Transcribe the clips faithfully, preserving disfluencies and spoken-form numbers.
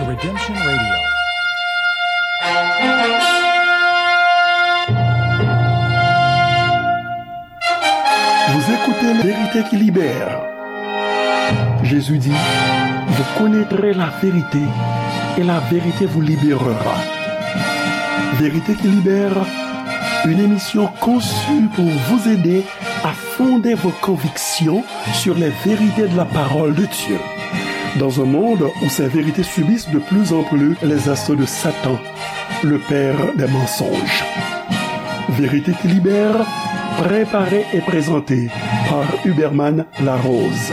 Redemption Radio. Vous écoutez Vérité qui libère. Jésus dit, vous connaîtrez la vérité et la vérité vous libérera. Vérité qui libère, une émission conçue pour vous aider à fonder vos convictions sur les vérités de la parole de Dieu. Dans un monde où ces vérités subissent de plus en plus les assauts de Satan, le père des mensonges. Vérité qui libère, préparée et présentée par Huberman Larose.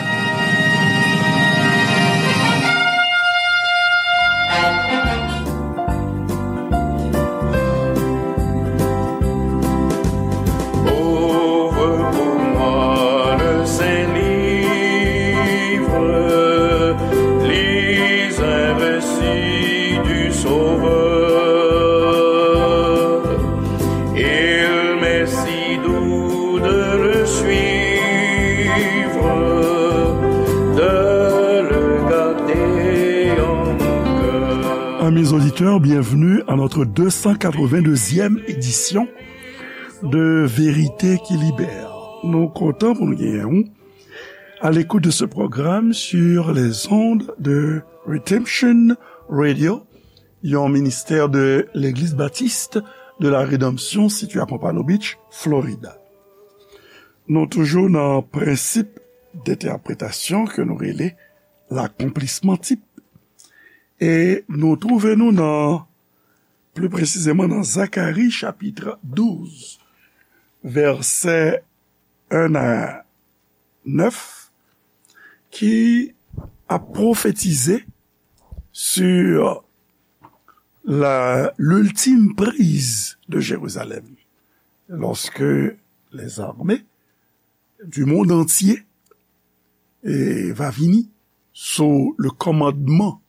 Ouvre pour moi le saint livre, lis un récit du Sauveur. Il m'est si doux de le suivre, de le garder en mon cœur. Amis auditeurs, bienvenue à notre deux cent quatre-vingt-deuxième édition de Vérité qui Libère. Nou kontan pou nou genyen w à l'écoute de ce programme sur les ondes de Redemption Radio, yon ministè de Legliz Batis de la Redanmsyon sitiye a Pompano Beach, Florida. Nou toujou nan prensip dentèpretasyon ke nou rele lakonplisman tip. E nou twouve nou nan, pli presizeman nan Zakari chapit douz, vèsè en a nèf, ki ap pwofetize sur la, l'ultime prise de Jérusalem, lorsque les armées du monde entier, eh, va vini sous le commandement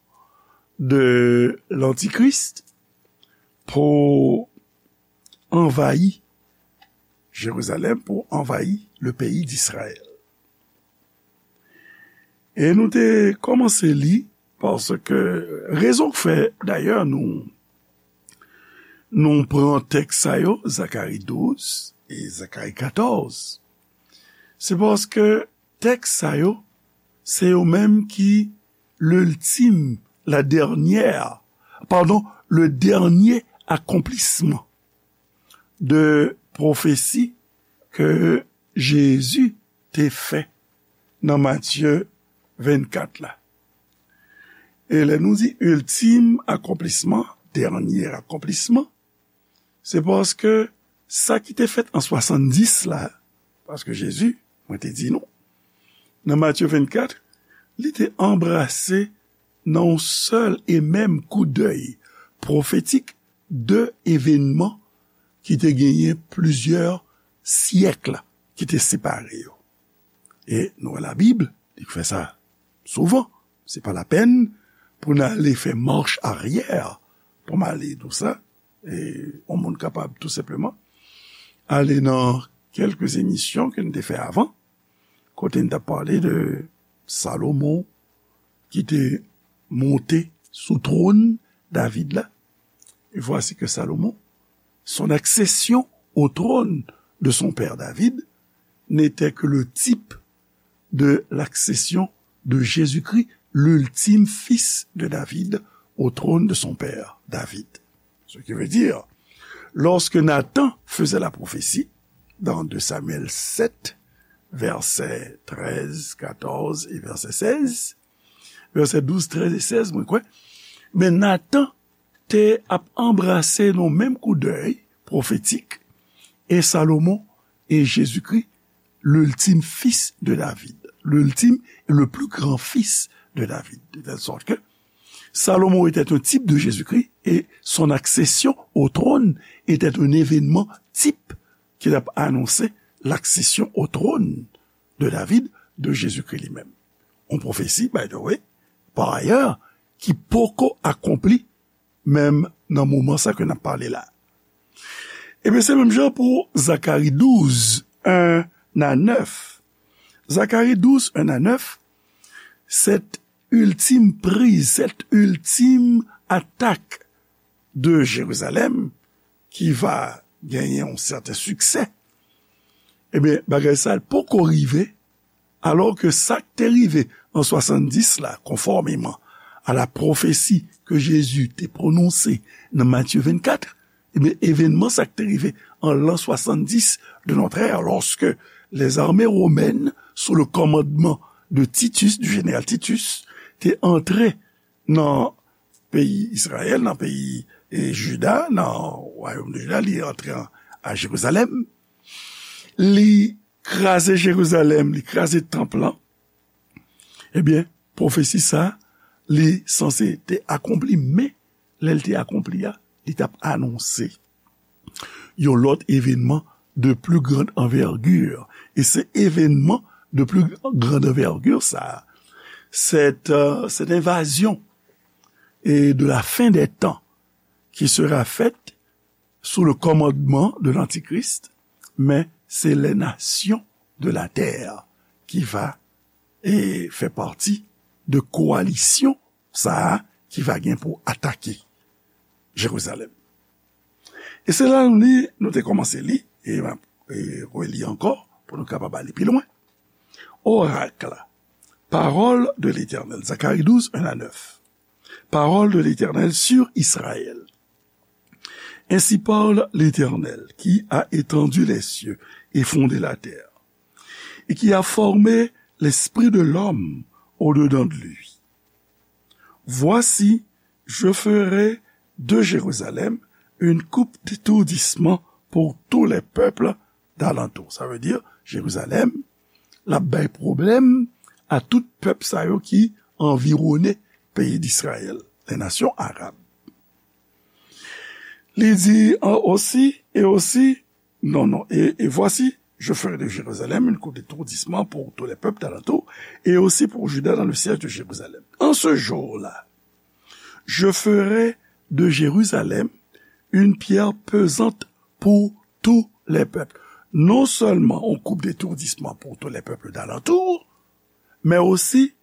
de l'Antichrist pour envahir Jérusalem, pour envahir le pays d'Israël. E nou te kòmanse li, paske rezon k fè, dayè, nou, nou pran tèks sa yo, Zakari douz e Zakari katòz, se paske tèks sa yo, se yo menm ki l'ultime, la dernière, pardon, le dernier accomplissement de pwofesi ke Jezi te fè nan Matye vennkat la. E lè nou di ultime accomplissement, dènye akonplisman, se paske sa ki te fèt an swasanndis la, paske Jezi, mwen te di nou, nan Matye vennkat, li te anbrase nan yon sèl e menm koudèy pwofetik de evènman ki te genyen plizyè syèk ki te separe yo. E nou wè Labib, li fè sa souvan. Se pa lapèn pou n ale fè mach aryè pou m ale di w sa. E yon moun kapab tou senpleman ale nan kèlke emisyon ke n te fè avan, kote n t ap pale de Salomon ki te monte sou twòn David la. Et voici que Salomon, son accession au trône de son père David, n'était que le type de l'accession de Jésus-Christ, l'ultime fils de David, au trône de son père David. Ce qui veut dire, lorsque Nathan faisait la prophétie, dans deux Samuel sept, versets treize, quatorze et verset seize, vèsè douz, trèz e sèz, mwen kwè, men Nathan te ap anbrase nan menm koudèy pwofetik, e Salomon e Jezikri, l'ultime fils de David, l'ultime et le plus grand fils de David. De telle sorte que Salomon était un type de Jésus-Christ et son accession au trône était un événement type ki t ap anonse l'accession au trône de David de Jezikri li menm. Yon pwofesi, by the way, pa ayè, ki poko akonpli menm nan moman sa ke n ap pale la. Ebyen, se menm jan pou Zakari douz, en a nèf. Zakari douz, en a nèf, cette ultime prise, cette ultime attaque de Jérusalem, qui va gagner un certain succès, ebyen, bagay sa a poko rive, alò ke sa k te rive an swasanndis la, conformément à la prophétie que Jésus te prononse nan Matthieu vingt-quatre, ebyen, evènman sa k te rive an l'an soixante-dix de notre ère, lorsque les armées romaines, sous le commandement de Titus, du général Titus, te antre nan peyi Izrayèl, nan peyi, e, Jida, nan wayòm de Jida, li antre an, a Jerizalèm, li kraze Jerizalèm, li kraze tanp lan, ebyen, pwofesi sa, li sanse te akonpli, men lè l te akonpli a, li t ap anonse yon lòt evènman de plus grande envergure. E se evènman de plus grande envergure sa a, cette, euh, cette invasion et de la fin des temps qui sera faite sous le commandement de l'Antichrist, mais c'est les nations de la terre qui va, et fait partie de coalition sa a ki va gen pou atake Jerizalèm. E se la nou li, nou te kòmanse li, e m ap, e, reli ankò pou nou kapab ale pi lwen. Oracle, parole de l'Éternel, Zacharie douze, un à neuf. Parole de l'Éternel sur Israël. Ainsi parle l'Éternel, qui a étendu les cieux et fondé la terre, et qui a formé l'esprit de l'homme au-dedans de lui. Voici, je ferai de Jérusalem une coupe d'étourdissement pour tous les peuples d'alentour. Sa vle di, Jerizalèm, l ap bay pwoblèm a tout pèp sa yo ki anviwone peyi d'Israël, les nations arabes. Li di, an, aussi, et aussi, non, non, et, et voici, je ferai de Jérusalem une coupe d'étourdissement pour tous les peuples d'alentour, et aussi pour Juda dans le siège de Jérusalem. En ce jour-là, je ferai de Jérusalem une pierre pesante pour tous les peuples. Non seulement on coupe d'étourdissement pour tous les peuples d'alentour, mais aussi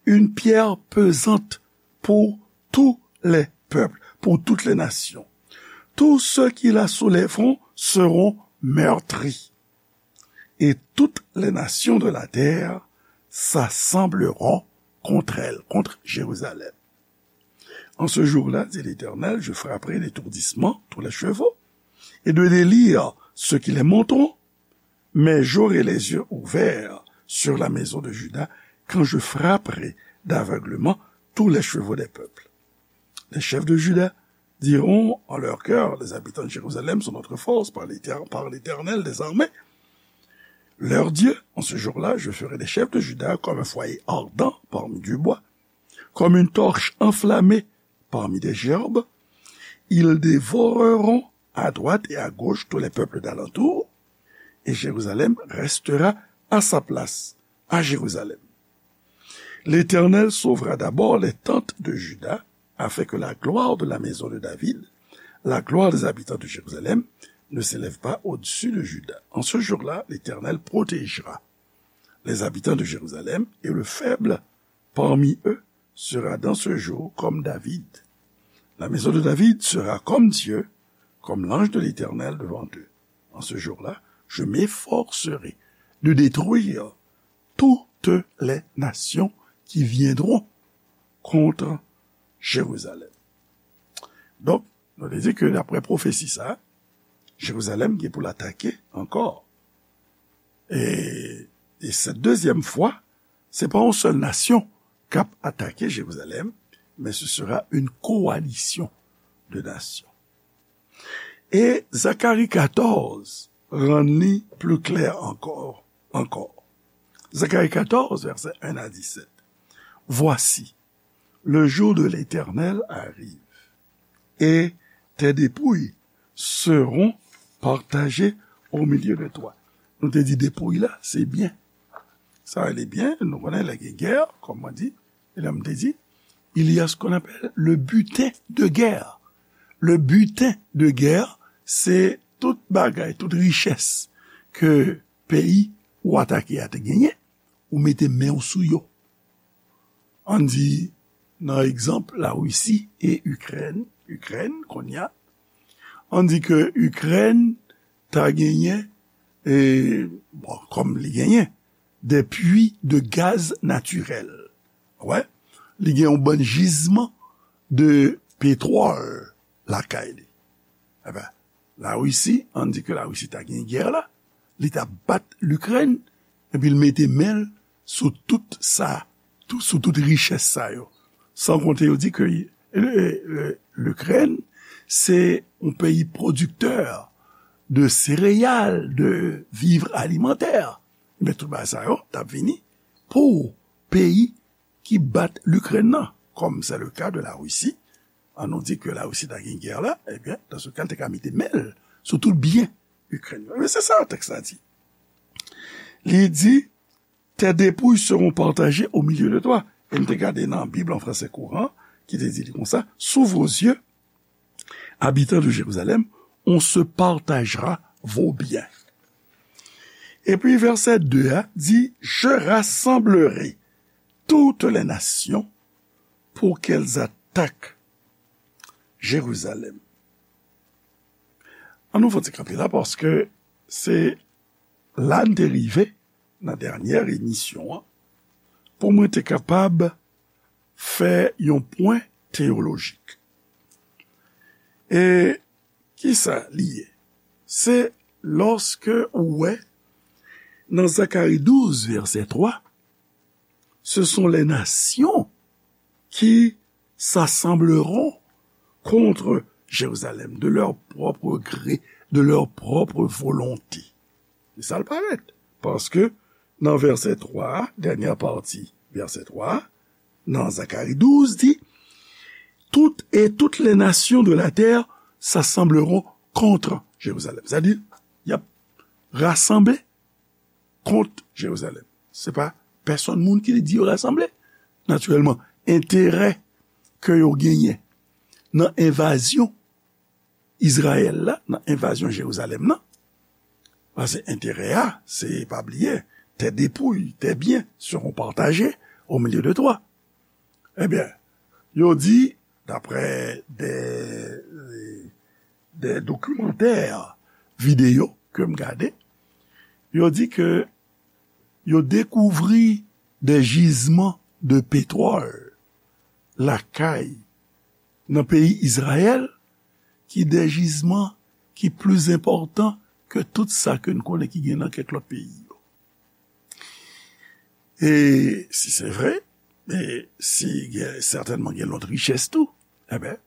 une pierre pesante pour tous les peuples, pour toutes les nations. Tous ceux qui la soulèveront seront meurtris, et toutes les nations de la terre s'assembleront contre elle, contre Jérusalem. En ce jour-là, dit l'Éternel, je frapperai d'étourdissement tous les chevaux, et de délire ceux qui les monteront, mais j'aurai les yeux ouverts sur la maison de Juda quand je frapperai d'aveuglement tous les chevaux des peuples. Les chefs de Juda diront en leur cœur, les habitants de Jérusalem sont notre force par l'Éter-, par l'Éternel des armées. Leur Dieu, en ce jour-là, je ferai des chefs de Juda comme un foyer ardent parmi du bois, comme une torche enflammée parmi des gerbes. Ils dévoreront à droite et à gauche tous les peuples d'alentour, et Jérusalem restera à sa place, à Jérusalem. L'Éternel sauvera d'abord les tentes de Juda, afin que la gloire de la maison de David, la gloire des habitants de Jérusalem, ne s'élève pas au-dessus de Juda. En ce jour-là, l'Éternel protégera les habitants de Jérusalem, et le faible parmi eux sera dans ce jour comme David. La maison de David sera comme Dieu, comme l'ange de l'Éternel devant eux. En ce jour-là, je m'efforcerai de détruire toutes les nations qui viendront contre Jérusalem. Donk, nou te di ke daprè pwofesi sa, Jerizalèm gen pou l atake ankò. E, e cette deuxième fois, se pa yon sèl nasyon k ap atake Jerizalèm, men ce sera une coalition de nations. E Zakari katòz rann li pli klè ankò, ankò. Zakari katòz, vèsè en a disèt. Voici, le jour de l'Éternel arrive, et tes dépouilles seront partagées au milieu de toi. Nou te di depouy la, se byen. Sa rele byen, nou konnen lè gen gè, kòm mwen di, e lè m te di, il y a ce qu'on appelle le butin de guerre. Le butin de guerre, se tout bagay, tout richès ke peyi ou atake a te genyen, ou mete men w sou yo. ann di, nan egzanp Larisi e Ikrèn, Ikrèn, kounye a, ann di ke Ikrèn ta genyen, e, bon, kòm li genyen, de puits de gaz naturel. Wè, li gen yon bann jizman de petwòl lakay li. Eben, Larisi, ann di ke Larisi ta gen gè la, li ta bat Likrèn, epi l mete men l sou tout sa, tou, sou tout richès sa yo. San konte yo di ke, e, e, Likrèn, se yon peyi pwodiktè de sereyal, de vivres alimentaires. Men tout bagay sa yo t ap vini pou peyi ki bat Likrèn nan, comme c'est le cas de la Russie. An nou di ke Larisi ta gen gè la, ebyen, dans ce cas, l te ka mete men l sou tout byen Ikrèn yo. Men se sa tèks la di. Li di, tes dépouilles seront partagées au milieu de toi. E n te gade nan Bib an fransè kouran, ki te di li konsa, sous vos yeux, habitants de Jérusalem, on se partagera vos biens. Epi vèsè de a di, je rassemblerai toutes les nations pour qu'elles attaquent Jérusalem. An nou fè ti kanpe la, paske se la n te rive nan dènyè emisyon an, pou mwen te kapab fè yon pwen teyolojik. E kisa li ye? Se lòske ou wè nan Zakari douz, vèsè twa, ce sont les nations qui s'assembleront contre Jérusalem de leur propre gré, de leur propre volonté. E sa l parèt. Paske nan vèsè twa a, dènyè pati vèsè twa a, nan Zakari douz, di, tout, et toutes les nations de la terre s'assembleront contre Jérusalem. Sa di, y ap rasanble kont Jerizalèm. Se pa pèsonn moun ki di yo rasanble. Natirèlman, enterè ke yo genyen nan envazyon Izrayèl la, nan envazyon Jerizalèm nan, paske enterè a, se, pa bliye, tes dépouilles, tes biens seront partagés au milieu de toi. Ebyen, yo di, daprè de, de dokimantè videyo ke m gade, yo di ke yo dekouvri de jizman de petwòl lakay nan peyi Izrayèl, ki de jizman ki pli enpòtan ke tout sa ke n konnen ki gen nan kèk lòt peyi yo. E si se vre, e si gen, sètènman gen lòt richès tou, enben,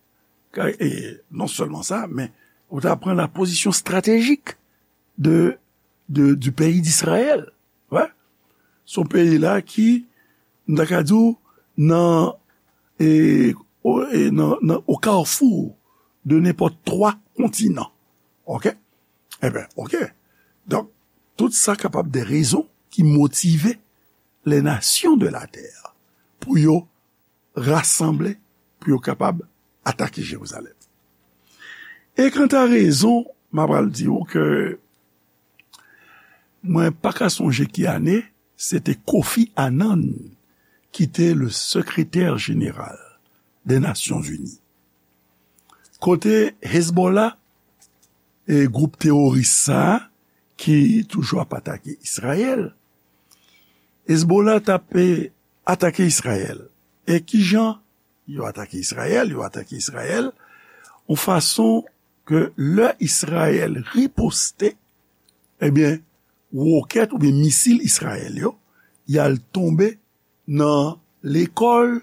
ka, e non sèlman sa, men ou ta pran la pozisyon estratejik de, de, du pays d'Israël. Wè. Se yon peyi la ki, m ta ka di w, nan, e, o, e, nan, nan, au carrefour de n'importe trois continents. Oke? Enben, oke. Donk, tout sa kapab de rezon ki motive les nations de la terre pou yo rasanble, pou yo kapab atake Jerizalèm. E kanta rezon, m apral di w ke mwen pa ka sonje ki ane, se te Kofi Annan ki te le sekretè jeneral de Nasyonzini. Kote Hezbollah, e gwoup teworis sa a, ki toujou ap atake Izrayèl, Hezbollah t ap, e, atake Izrayèl. E kijan yo atake Izrayèl? Yo atake Izrayèl yon fason ke lè Izrayèl riposte, ebyen, wokèt oubyen misil Izrayèl yo, y al tonbe nan lekòl,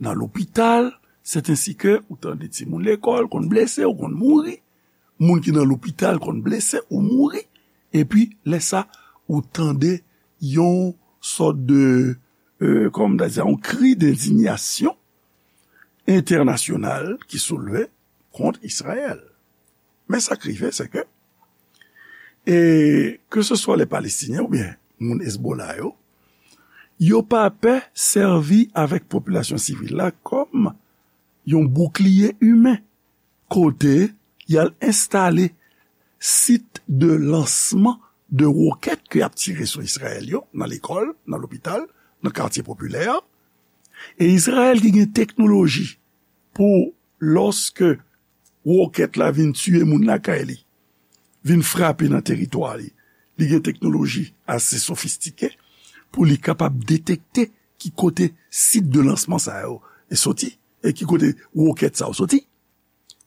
nan lopital, sèt ensi ke ou tande timoun lekòl konn blese, ou konn mouri, moun ki nan lopital konn blese ou mouri, epi lè sa, ou tande yon sòt de, e, kòman m ta di sa, yon kri dendinyasyon entènasyonal ki soulve kont Izrayèl. Men sa k rive, se ke, e, ke se swa lè Palestinyen oubyen moun Hezbollah yo, yo pa pè sèvi avèk popilasyon sivil la kòm yon boukliye imen, kote y al enstale sit de lansman de wokèt ke y ap tire sou Izrayèl yo, nan lekòl, nan lopital, nan katye popilè, E Izrayèl ki gen teknoloji pou lòske wokèt la vin tiye moun lakay li, vin frape nan teritwa li, li gen teknoloji ase sofistike pou li kapab detekte ki kote sit de lansman sa yo soti e ki kote wokèt sa yo soti.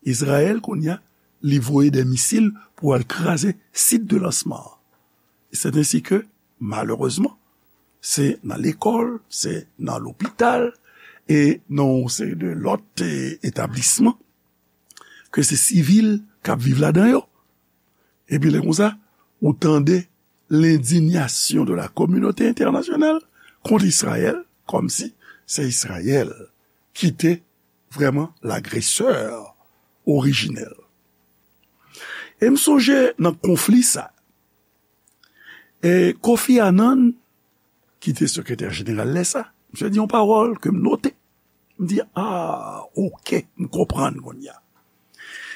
Izrayèl, kounye a, li voye de misil pou al kraze sit de lansman an. E c'est ainsi que, malerezman, se nan lekòl, se nan lopital, e nan yon seri de lòt e, etablisman, ke se sivil k ap viv ladan yo. Epi lè konsa, ou tande l'indignation de la communauté internationale kont Izrayèl, kòmsi se Izrayèl ki te vrèman lagresè orijinèl. E m sonje nan konfli sa, e Kofi Annan, ki te sekretè jeneral lè sa, misye di yon pawòl ke m note. M di, ah, oke, m konprann kounye a.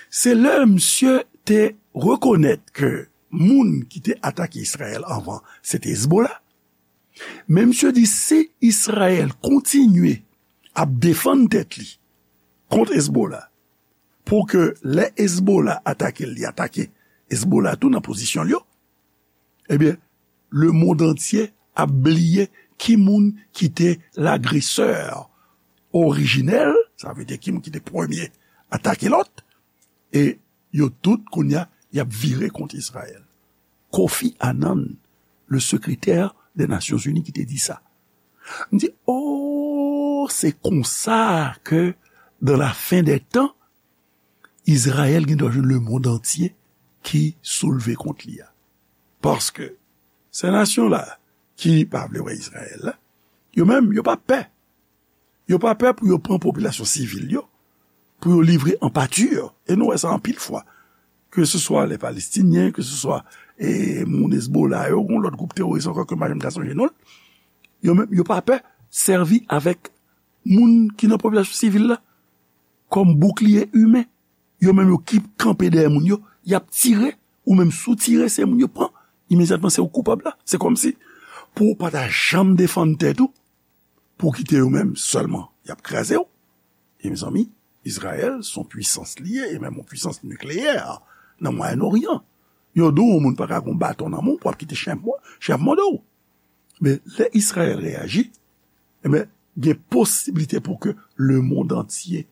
Se lè misye te rekonèt ke moun ki te atake Izrayèl anvan, se te Hezbollah. Men misye di, si Izrayèl kontinye ap defann tèt li kont Hezbollah, pou ke lè Hezbollah atake l, li atake Hezbollah tou nan pozisyon l yo, ebyen, lemonn antye ap bliye ki moun ki te lagresè orijinèl, sa vle di ki moun ki te premye atake lòt, e yo tout, kounye a, y ap vire kont Izrayèl. Kofi Annan, le secrétaire des Nations Unies, ki te di sa. M di, oh, se konsa ke, dans la fin des temps, Izrayèl gen dwa jwenn lemonn antye ki soulve kont li a. Paske se nasyon la ki pa vle wè Izrayèl la, yo menm, yo pa pè. Yo pa pè pou yo pran popilasyon sivil yo, pou yo livre an pati. E nou wè sa anpil fwa. Ke se swa lè Palestinyen, ke se swa e, moun Hezbollah yo, yon lòt gwoup teworis ankò ke m pa janm ka sonje non l, yo menm, yo pa pè sèvi avèk moun ki nan popilasyon sivil la kòm boukliye imen. Yo menm yo ki kanpe dèyè moun yo, y ap tire, ou menm si w tire, se moun yo pran. Imedyatman, se ou k koupab la. Se kòmsi, pou w pa ta janm defann tèt ou, pou w kite yo menm sèlman, y ap kraze w. E mezanmi, Izrayèl se yon pwisans li ye, e menm yon pwisans nikleyè nan Mwayen Oryan. Yo di w yon moun pa ka gen yon baton nan men w pou w ap kite chen ap mò-, chen ap mòde w. Men lè Izrayèl reyaji, ebyen, gen posiblite pou ke lemonn antye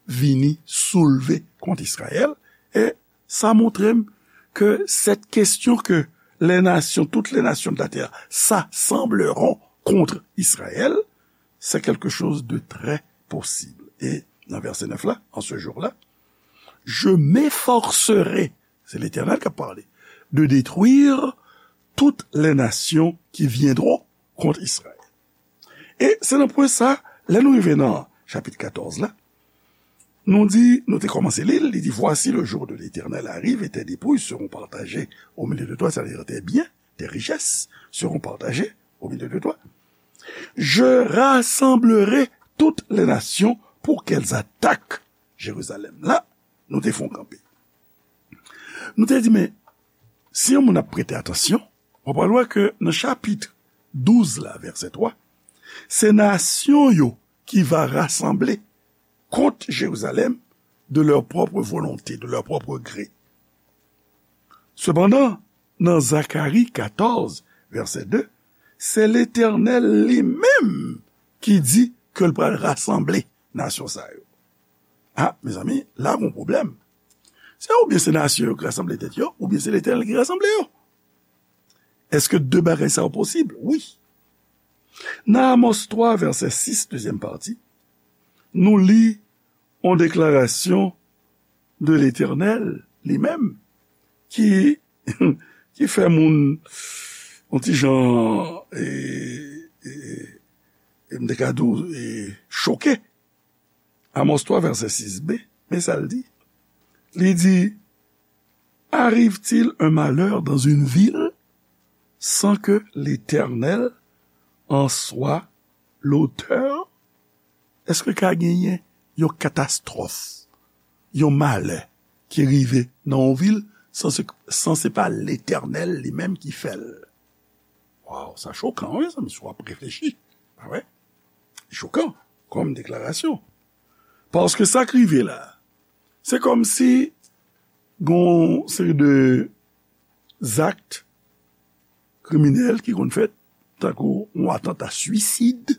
vini soulve kont Izrayèl. E sa montre m ke cette question que les nations, toutes les nations de la terre s'assembleront contre Israël, c'est quelque chose de très possible. E nan vèsè nèf la, en ce jour-là, je m'efforcerai, se Letènèl k ap pale, de détruire toutes les nations qui viendront contre Israël. E se nan pwen sa, lè nou rive nan chapit katòz la, nou di, nou te kòmanse li l, li di, voici, le jour de l'Éternel arrive et tes dépouilles seront partagées au milieu de toi, c'est-à-dire tes biens, tes richesses seront partagées au milieu de toi. Je rassemblerai toutes les nations pour qu'elles attaquent Jérusalem. La, nou te fè yon kanpe. Nou te di, men, si yon moun ap prete atansyon, w ap wè ke nan chapit douz la, vèsè twa, se nasyon yo ki va rasanble kont Jerizalèm de leur propre volonté, de leur propre gré. Sepandan, nan Zakari katòz, vèsè de, se Letènèl li menm ki di ke l pral rasanble nasyon sa yo. A, mezanmi, la gon pwoblèm. Se oubyen se nasyon yo ki rasanble tèt yo, oubyen se Letènèl ki rasanble yo. Èske de bagay sa yo posib? Wi. Nan Amòs twa, vèsè sis, dezyèm pati, nou li yon deklarasyon de Letènèl li menm ki, ki fè moun yon ti jan, e, e, e, m te ka di w, e, choke. Amòs twa, vèsè sis b, men sa l di. Li di, arrive-t-il un malheur dans une ville sans que l'Éternel en soit l'auteur? Èske ka genyen yon katastwòf, yon malè ki rive nan yon vil san se, san se pa Letènèl li menm ki fè l? Waw, sa chokan, wi, mezanmi, si w ap reflechi. Pa vre? chokan kòm deklarasyon. Paske sa k rive la, se kòmsi gen yon seri de zak kriminèl ki konn fèt, tankou yon atanta swisid,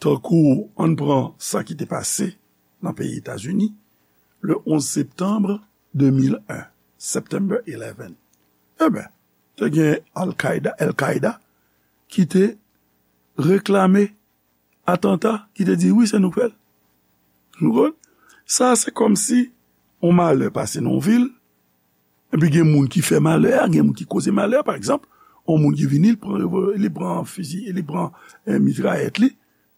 tankou, ann pran sa ki te pase nan peyi Etazini, le onz septanm de mil en, September eleven. Enben, te gen Al-Qaeda, Al-Qaeda, ki te reklame atanta, ki te di, wi, se nou k fè l. Nou konn? Sa, se kòmsi yon malè pase nan yon vil, epi gen moun ki fè malè a, gen moun ki koze malè a. Pa egzanp, yon moun ki vini, li pran revol-, li pran fizi, li pran, eh, mitrayèt li,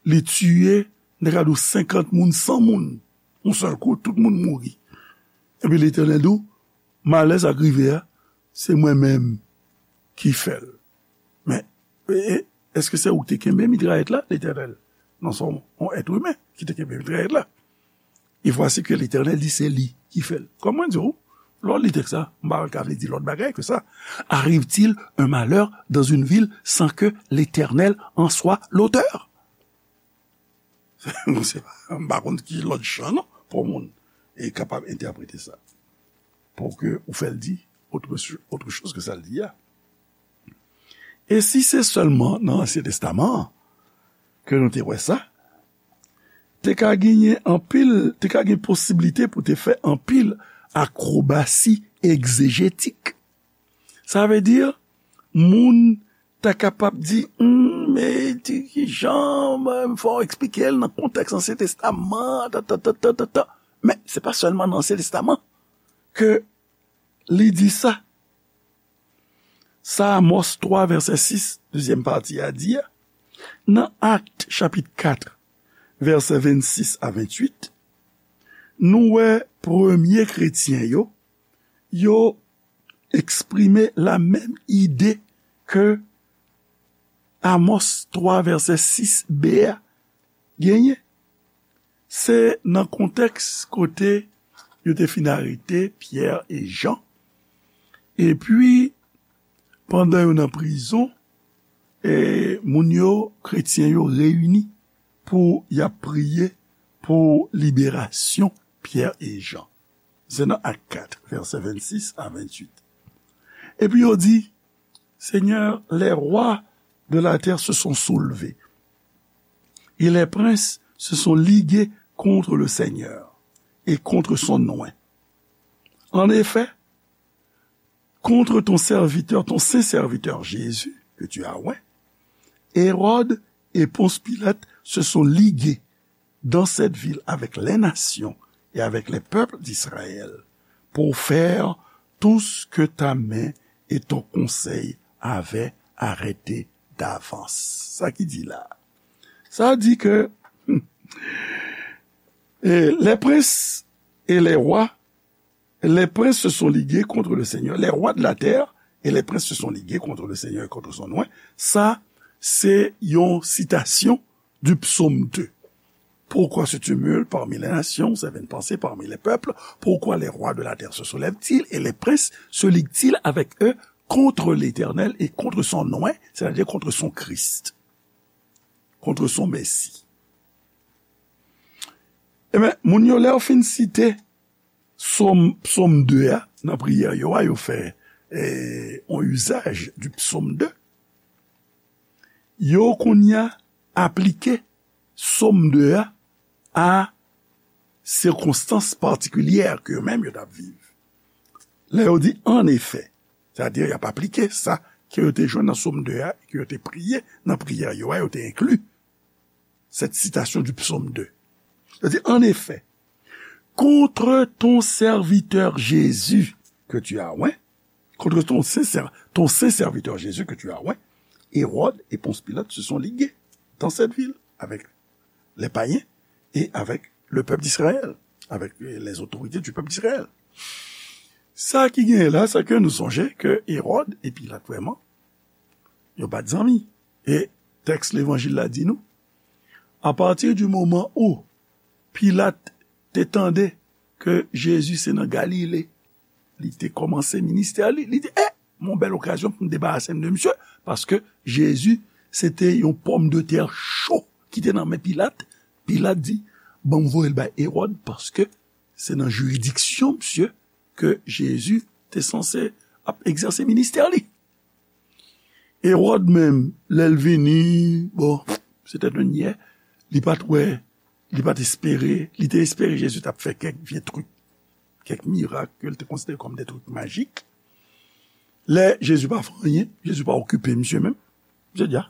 li tiye, m ta ka di w senkant moun, san moun, yon sèl kou, tout moun mouri. Epi Letènèl di w, malè sa k rive a, se mwen menm ki fè l. Men, e, e, èske se ou ki te kenbe mitrayèt la, Letènèl? Non, se yon, yon èt imen ki te kenbe mitrayèt la. Et voici que l'Éternel dit, se li ki fè l. Kòm mwen di w, lè w li tèks la, m pa wè l ka vle di lòt bagay ke sa. Arrive-t-il un malheur dans une ville sans que l'Éternel en soit l'auteur? Se pa, m pa konn ki lòt jan non, pou moun e kapab entèprete sa. Pou ke ou fè l di autre, autre chose que sa l di a. E si se sèlman nan Ansyen Testaman an ke nou te wè sa, te ka genyen anpil, te ka gen posiblite pou te fè anpil akrobasi egzejetik. Sa vle di, moun ta kapab di, hmm, men ti kijan, men fò w eksplike l nan kontèks Ansyen Testaman, ta, ta, ta, ta, ta, ta. Men, se pa sèlman nan Ansyen Testaman ke li di sa. Sa Amòs twa, vèsè sis, dezyèm pati a di a. Nan Akt, chapit kat, vèsè vennsis a venntuit, nou wè premye kretyen yo, yo eksprime la menm ide ke Amòs twa, vèsè sis b a genyen. Se nan kontèks kote yo te fin arete Pyè e Jan. Epi, pandan yo nan prizon, e, moun yo, kretyen yo, reyini pou y ap priye pou liberasyon Pyè e Jan. Se nan Ak kat, vèsè vennsis a venntuit. Epi yo di, Seigneur, les rois de la terre se sont soulevés, et les princes se sont ligués contre le Seigneur et contre son oint. En effet, contre ton serviteur, ton saint serviteur Jésus, que tu as oint, Hérode et Ponce Pilate se sont ligués dans cette ville avec les nations et avec les peuples d'Israël pour faire tout ce que ta main et ton conseil avaient arrêté d'avance. Sa ki di la. Sa di ke, hmm, e, les princes et les rois, les princes se sont ligués contre le Seigneur. Les rois de la terre et les princes se sont ligués contre le Seigneur et contre son oint. Sa, se yon sitasyon du psaume deux. Pourquoi se tumulte parmi les nations, ces vaines pensées parmi les peuples? Pourquoi les rois de la terre se soulèvent-ils et les princes se liguent-ils avec eux contre l'Éternel et contre son oint, c'est-à-dire contre son Christ, contre son Messie? Ebyen, moun yo, lè yo fin site Sòm, Sòm de a, nan priyè yo a, yo fè, eh, on usage du psaume deux. Yo kounye a aplike Sòm de a a sikonstans patikilyè ke yo menm yo t ap viv. Lè yo di, en effet, sètadi y ap aplike sa ke yo te jwenn nan Sòm de a, ke yo te priye nan priyè yo a, yo te enkli cette citation du psaume deux. Yo di, en effet, contre ton serviteur Jésus que tu as oint, contre ton saint, ton saint serviteur Jésus que tu as oint, Hérode et Ponce Pilate se sont ligués dans cette ville avec les païens et avec le peuple d'Israël, avec les autorités du peuple d'Israël. Sa ki genyen la, se ke nou sonje ke Hérode et Pilate, vrèman, yo pa t zanmi. E tèks Levanjil la di nou, à partir du moment où Pilat te tande ke Jezi se nan Galile li te kòmanse ministè li, li di, eh, mon bèl okazyon pou m debarase m de misye, paske Jezi se te yon pòmdetè cho ki te nan men Pilat. Pilat di, "Ban m voye l bay Ewòd, paske se nan jiridiksyon misye ke Jezi te sanse ap egzèse ministè li." Ewòd menm, lè l vini, bon, se tèt yon nyè, li pa t wè, li pa t espere, li te espere Jezi t ap fè kèk vye trik, kèk mirak ke l te konsidere kòm de trik majik. Lè Jezi pa fè anyen, Jezi pa okipe misye menm. Misye di, "A,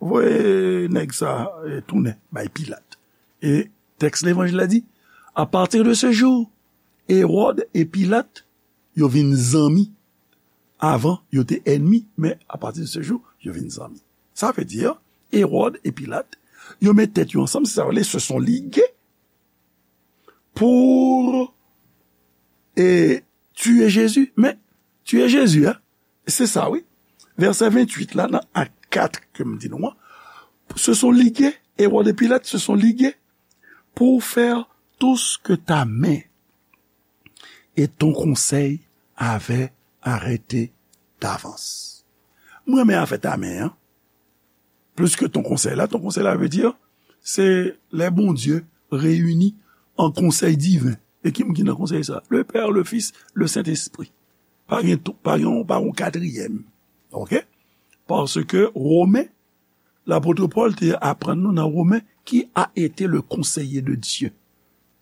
voye nèg sa, eh, tounen bay Pilat." E tèks Levanjil la di, "À partir de ce jour, Hérode et Pilate, yo vin zanmi. Avan, yo te ènmi, men à partir de ce jour, yo vin zanmi." Sa vle di, Ewòd e Pilat, yo met tèt yo ansanm, se sa yo rele se sont ligués pour, eh, tuer Jésus. Men, tuer Jésus, hein, se sa, wi. Vèsè venntuit la, nan Ak kat ke m di nou an, se sont ligués, Ewòd e Pilat se sont ligués pour faire tout ce que ta main et ton conseil avaient arrêté d'avance. Mwen renmen afè ta men an. Plis ke ton konsèy la, ton konsèy la vle di, se lè Bondye reyini an konsèy diven. E ki moun ki nan konsèy sa? Le Père, le Fils, le Saint-Esprit. Pa gen, pa gen, pa gen yon katriyèm. Oke? Paske Women, lapot Pòl te aprann nou nan Women, qui a été le conseiller de Dieu,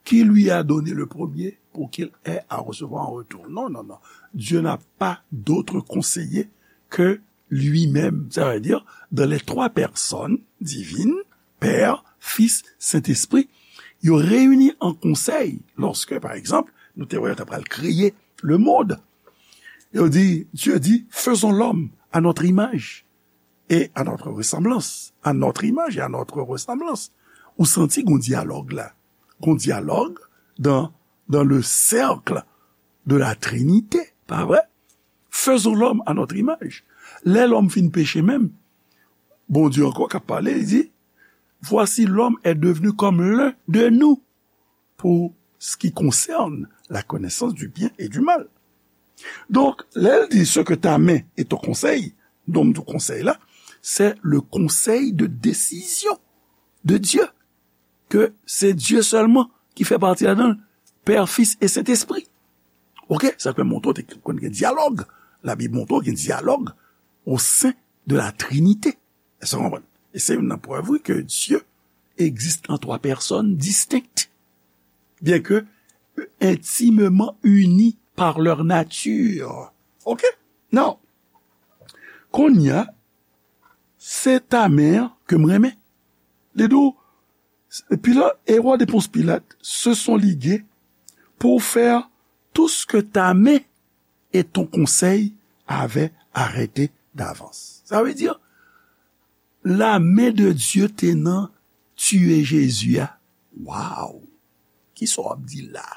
qui lui a donné le premier pour qu'il ait à recevoir en retour. Non, non, non. Dieu n'a pas d'autre conseiller que lui-même. Sa vle di, dans les trois personnes divines, Père, Fils, Saint-Esprit, yo reyini an konsèy, lòske, pa egzanp, nou te wè yo ta pral kreye le monde. Yo di, Dieu dit, faisons l'homme à notre image et à notre ressemblance. À notre image et à notre ressemblance. Ou santi gon dyalòg la. Gon dyalòg dans, dans le cercle de la Trinité, pa vre? Faisons l'homme à notre image. Lè lòm fin peche menm, Bondye ankò k ap pale, li di, voici l'homme est devenu comme l'un de nous pour ce qui concerne la connaissance du bien et du mal. Donk, lè l di ce que ta main et ton conseil, donk, konsèy la, c'est le conseil de décision de Dieu, ke se Dye sèlman ki fè pati ladan l, Pè, Fis e Sentespri. Oke? Sa k fè montre w te konn gen dyalòg. Labib montre w gen dyalòg au sein de la Trinité. Èske w konprann? E se youn nan prèv, wi, ke Dieu existe en trois personnes distinctes, bien que intimement unis par leur nature. Oke? Now, kounye a, se ta men an ke m renmen. Li di w, Pilat, et roi de Ponce Pilate se sont ligués pour faire tout ce que ta main et ton conseil avaient arrêté d'avance. Sa vle di, la men de Dye te nan tiye Jezi a. Waw! Kisa w ap di la?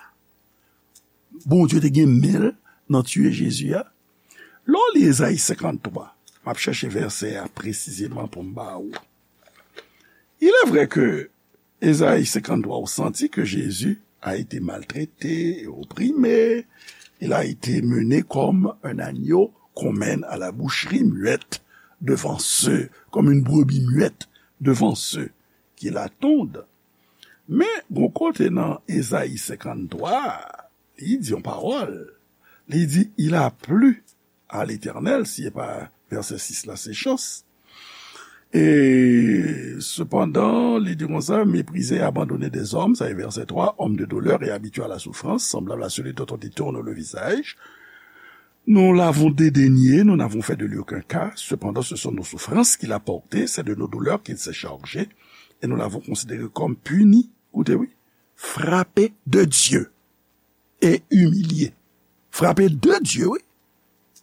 Bondye te gen men l nan tiye Jezi a? Lè w li Ezayi senkanntwa, m ap chèche vèsè a presizeman pou m ba ou. Il est vrai que Ezayi senkanntwa, ou santi que Jésus a été maltraité et opprimé. Il a été mené comme un agneau qu'on mène à la boucherie, muette devant ceux, comme une brebis muette devant ceux qui l'attendent. Men, gon kote nan Ezayi senkanntwa, li di yon pawòl. Li di, il a plu à l'Éternel, si e pa vèsè sis la, se chans. Et cependant, li di konsa, méprisé et abandonné des hommes, sa e vèsè twa, homme de douleur et habitué à la souffrance, semblable à celui dont on détourne le visage. Nous l'avons dédaigné, nous n'avons fait de lui aucun cas. Cependant, ce sont nos souffrances qu'il a portées, c'est de nos douleurs qu'il s'est chargé, et nous l'avons considéré comme puni, koute wi, frappé de Dieu et humilié. Frappé de Dieu, wi.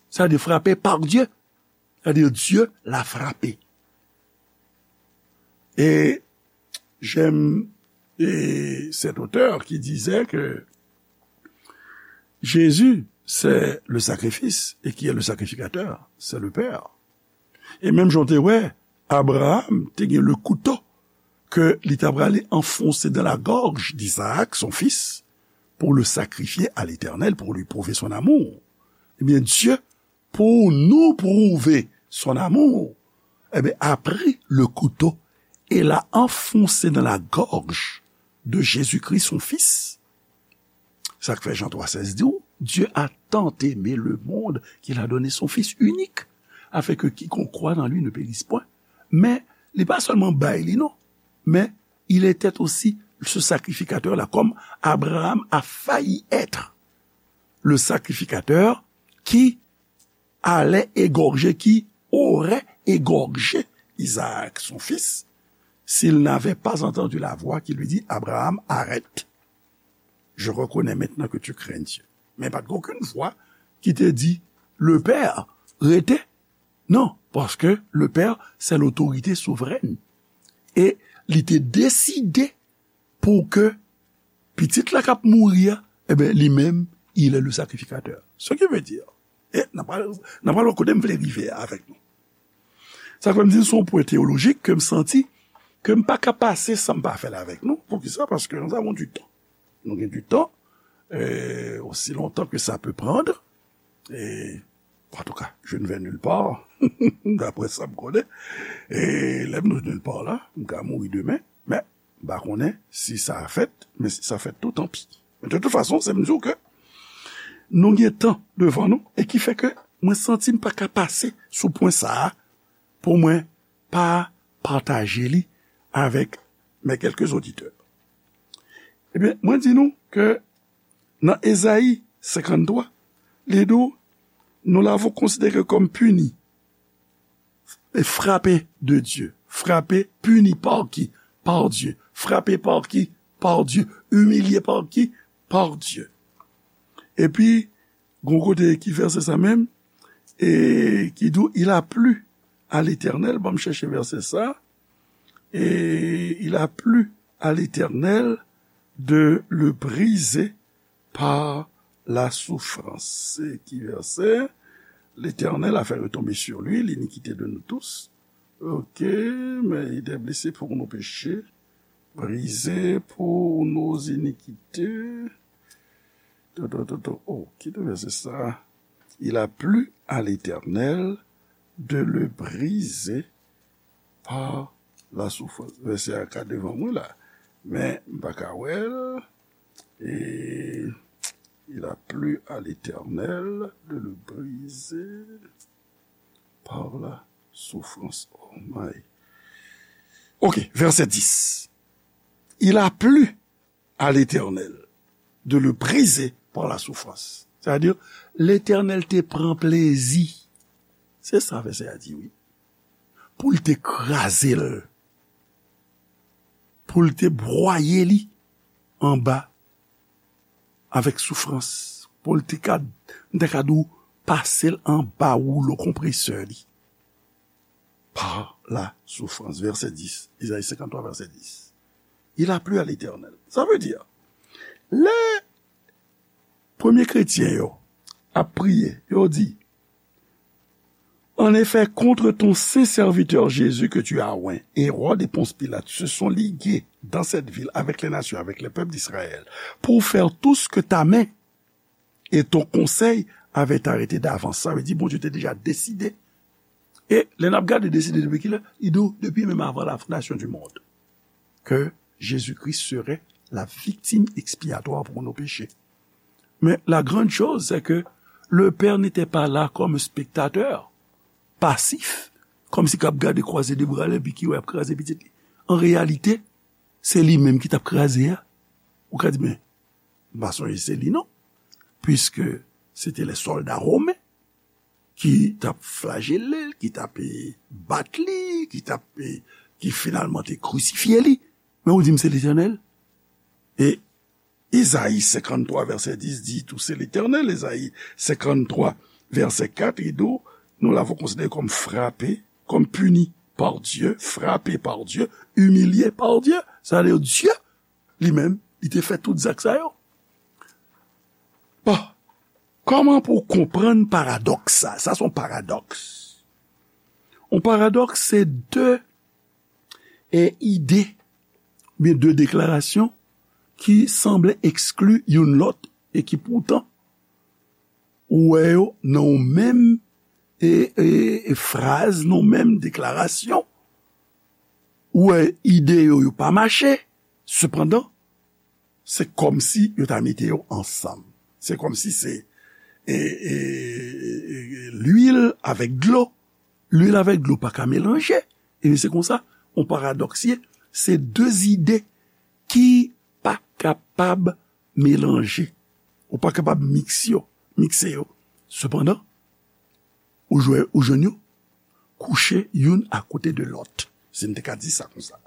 Sa vle di frappé par Dieu. Sa vle di Dieu l'a frappé. Et j'aime, et cet auteur qui disait que Jésus, c'est le sacrifice, et qui est le sacrificateur, c'est le Père. E menm jan w te wè, Abraham te gen le couteau ke li ta prale anfonse dans la gorge d'Isaac, son fils, pour le sacrifier à l'Éternel, pour lui prouver son amour. Ebyen, Dieu, pour nous prouver son amour, eh bien, a pris le couteau et l'a enfoncé dans la gorge de Jésus-Christ, son Fils. Sa k fè Jan twa sèz di w, Dieu a tant aimé le monde qu'il a donné son Fils unique, afin que quiconque croit en lui ne périsse point. Men, li pa sèlman bay li, non, men il était aussi ce sacrificateur-là, comme Abraham a failli être le sacrificateur qui allait égorger, qui aurait égorgé Isaac, son fils, s'il n'avait pas entendu la voix qui lui dit, Abraham, arrête. Je reconnais maintenant que tu crains Dieu. Men pa t gen okenn vwa ki te di, le Père, rete. Non, paske le Père, c'est l'autorité souveraine. E li te deside pou ke pitit la k ap mouri a, e ben, li menm, il est le sacrificateur. Ce qui veut dire, e n ap pral, n ap pral wè kote m vle rive a avèk nou. Sa fè m di se yon pwen teyolojik ke m santi ke m pa ka pase san m pa fè l avèk nou. Poukisa? Paske nous avons du temps. Nou gen du temps, euh, aussi longtemps que ça peut prendre. E, en tout cas, je ne vais nulle part, d'après sa m konnen. E lè m nou nulle part la, m ka mouri demen, men m pa konnen si sa a fèt, men si sa fèt tou, tanpi. Men de tout fason, se m di w ke nou gen tan devan nou, e ki fè ke mwen santi m pa ka pase sou pwen sa a pou mwen pa pataje li avèk mes quelques auditeurs. Ebyen, mwen di nou ke nan Ezayi senkanntwa, li di w, nous l'avons considéré comme puni et frappé de Dieu. Frappé, puni par qui? Par Dieu. Frappé par qui? Par Dieu. Humilié par qui? Par Dieu. Epi, gon kote ki vèsè sa menm, e ki di w, il a plu à l'Éternel, ban m chèche vèsè sa, et il a plu à l'Éternel de le briser par la souffrance. Se ki vèsè? L'Éternel a fait retomber sur lui l'iniquité de nous tous. Ok, mais il est blessé pour nos péchés, brisé pour nos iniquités. To, to, to, to. Oh, ki te vèsè sa? Il a plu à l'Éternel de le briser par la souffrance. Vèsè a ka devan mwen la, men m pa ka wè l. Et il a plu à l'Éternel de le briser par la souffrance. Oh my. Ok, vèsè dis. Il a plu à l'Éternel de le briser par la souffrance. Sa vle di, Letènèl te pran plezi. Se sa vèsè a di, wi. Pou l te kraze l. Pou l te bwaye li anba avèk soufrans. Pou l te ka, m te ka di w, pase l anba woulo konpresè li. Par la souffrance. Vèsè dis. Ezayi senkanntwa, vèsè dis. Il a plu à l'Éternel. Sa vle di, lè premye kretyen yo ap priye, yo di, En effet, contre ton saint serviteur Jésus que tu as oint, Hérode et Ponce Pilate se sont ligués dans cette ville avec les nations, avec les peuples d'Israël, pour faire tout ce que ta main et ton conseil avaient arrêté d'avance. Sa vle di, Bondye te deja deside. E lè n ap gade deside depi kilè, li di w depi menm avan la fondation du monde, que Jésus-Christ serait la victime expiatoire pour nos péchés. Mais la grande chose, c'est que le père n'était pas là comme spectateur, passif, kòmsi k ap gade kwaze de bra l epi ki wè ap kraze pitit li. An reyalite, se li menm ki t ap kraze a. Ou ka di, men, m pa sonje se li non. Puiske se te lè sòlda women ki t ap flajele l, ki t ap, e, bat li, ki t ap, e, ki finalman te krisifye li. Men ou di m se Letènèl? E Ezayi senkanntwa, vèsè dis di tou se Letènèl. Ezayi senkanntwa, vèsè kat, li di w, nous l'avons considéré comme frappé, comme puni par Dieu, frappé par Dieu, humilié par Dieu. Sa vle di, Dye, li menm, li te fè tout zak sa yo. Bon, kòman pou w konprann paradòks sa? Sa se yon paradòks. Yon paradòks se de, e, ide, oubyen de deklarasyon ki sanble ekskli youn lòt e ki poutan ou wè yo nan yon menm, e, e, e fraz, nan yon menm deklarasyon. ou wè ide yo, yo pa mache, sepandan, se kòmsi yo ta mete yo ansanm. Se kòmsi se e, e, e, e, lwil avèk dlo. Lwil avèk dlo pa ka melanje. E se konsa, yon paradòks ye. Se de zide ki pa kapab melanje. Ou pa kapab miks yo, mikse yo. Sepandan, ou jwe, ou jwenn yo kouche youn akote de lòt, si n te ka di sa konsa.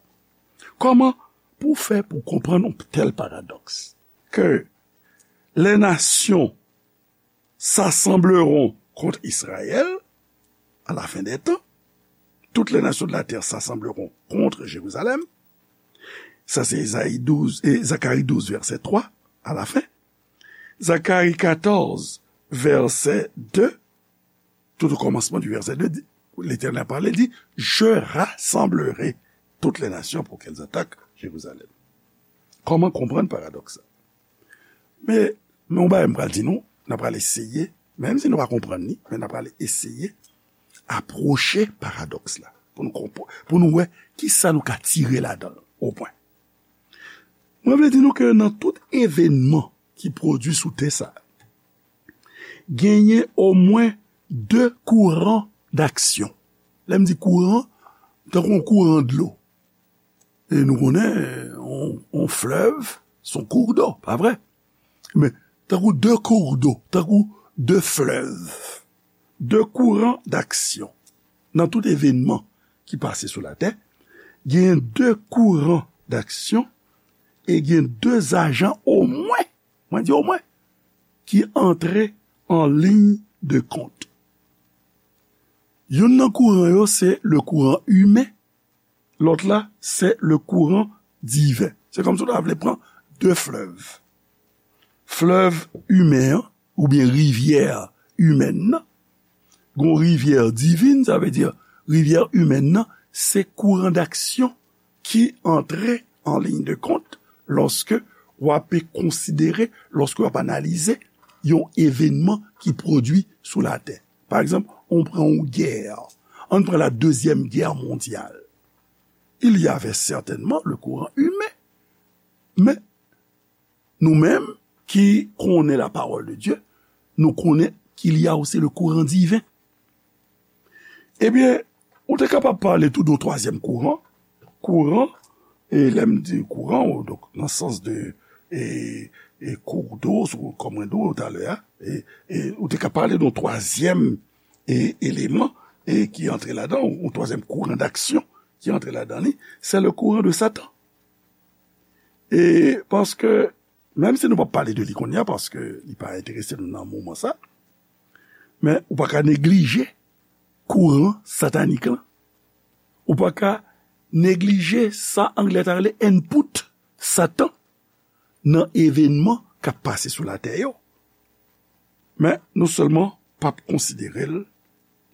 Kòman pou fè pou konprann yon tèl paradòks? Que les nations s'assembleront contre Israël à la fin des temps. Toutes les nations de la terre s'assembleront contre Jérusalem. Sa se Ezayi douz, e, Zakari douz, vèsè twa, à la fin. Zakari katòz, vèsè de, tout au commencement du verset deux, di, Letènèl pale, di, Je rassemblerai toutes les nations pour qu'elles attaquent Jérusalem. Kòman konprann paradòks sa? Men, men yon bagay m pral di nou, n a pral eseye, menm si nou pa konprann li, men n a pral eseye apwoche paradòks la, pou nou konprann, pou nou wè kisa nou ka tire ladan l, opwen. Mwen vle di nou ke nan tout evènman ki pwodui sou tè sa, genyen omwen de kouran daksyon. Lè m di kouran, tankou yon kouran dlo. E nou konnen, yon, yon flèv, se yon kourdò, pa vre? Men, tankou de kourdò, tankou de flèv, de kouran daksyon. Nan tout evènman ki pase sou latè, gen de kouran daksyon e gen de ajan omwen, mwen di omwen, ki antre an liy de kont. Youn nan kouran yo se le kouran imen, lòt la se le kouran diven. Se kòmsi w ta vle pran de flèv. Flèv imen an, oubyen rivyè imèn nan, gon rivyè divin, sa vle di rivyè imèn nan, se kouran daksyon ki antre an liy de kont lòske w ape konsidere, lòske w ap analize yon evènman ki pwodui sou latè. Pa egzanp, on pran yon gè. Ann pran la Deuxième Guerre mondiale. Il y avait certainement le courant humain. Men, nou menm ki konnen la parole de Dieu, nou konnen qu'il y a aussi le courant divin. Ebyen, ou te kapab pale tou de yon twazyèm kouran. Kouran, e lè m di kouran, ou, donk, nan sans de, e, e kourdò, sou, kòm mwen di w talè a, e, e ou te ka pale de yon twazyèm, e, eleman, e ki antre ladan, yon twazyèm kouran daksyon ki antre ladan li, se le kouran de Satan. E paske, menm si nou p ap pale de li kounye a, paske li pa enterese nou nan moman sa, men ou pa ka neglije kouran satanik lan. Ou pa ka neglije sa anglè ta rele input Satan nan evènman k ap pase sou latè yo. Men nou sèlman p ap konsidere l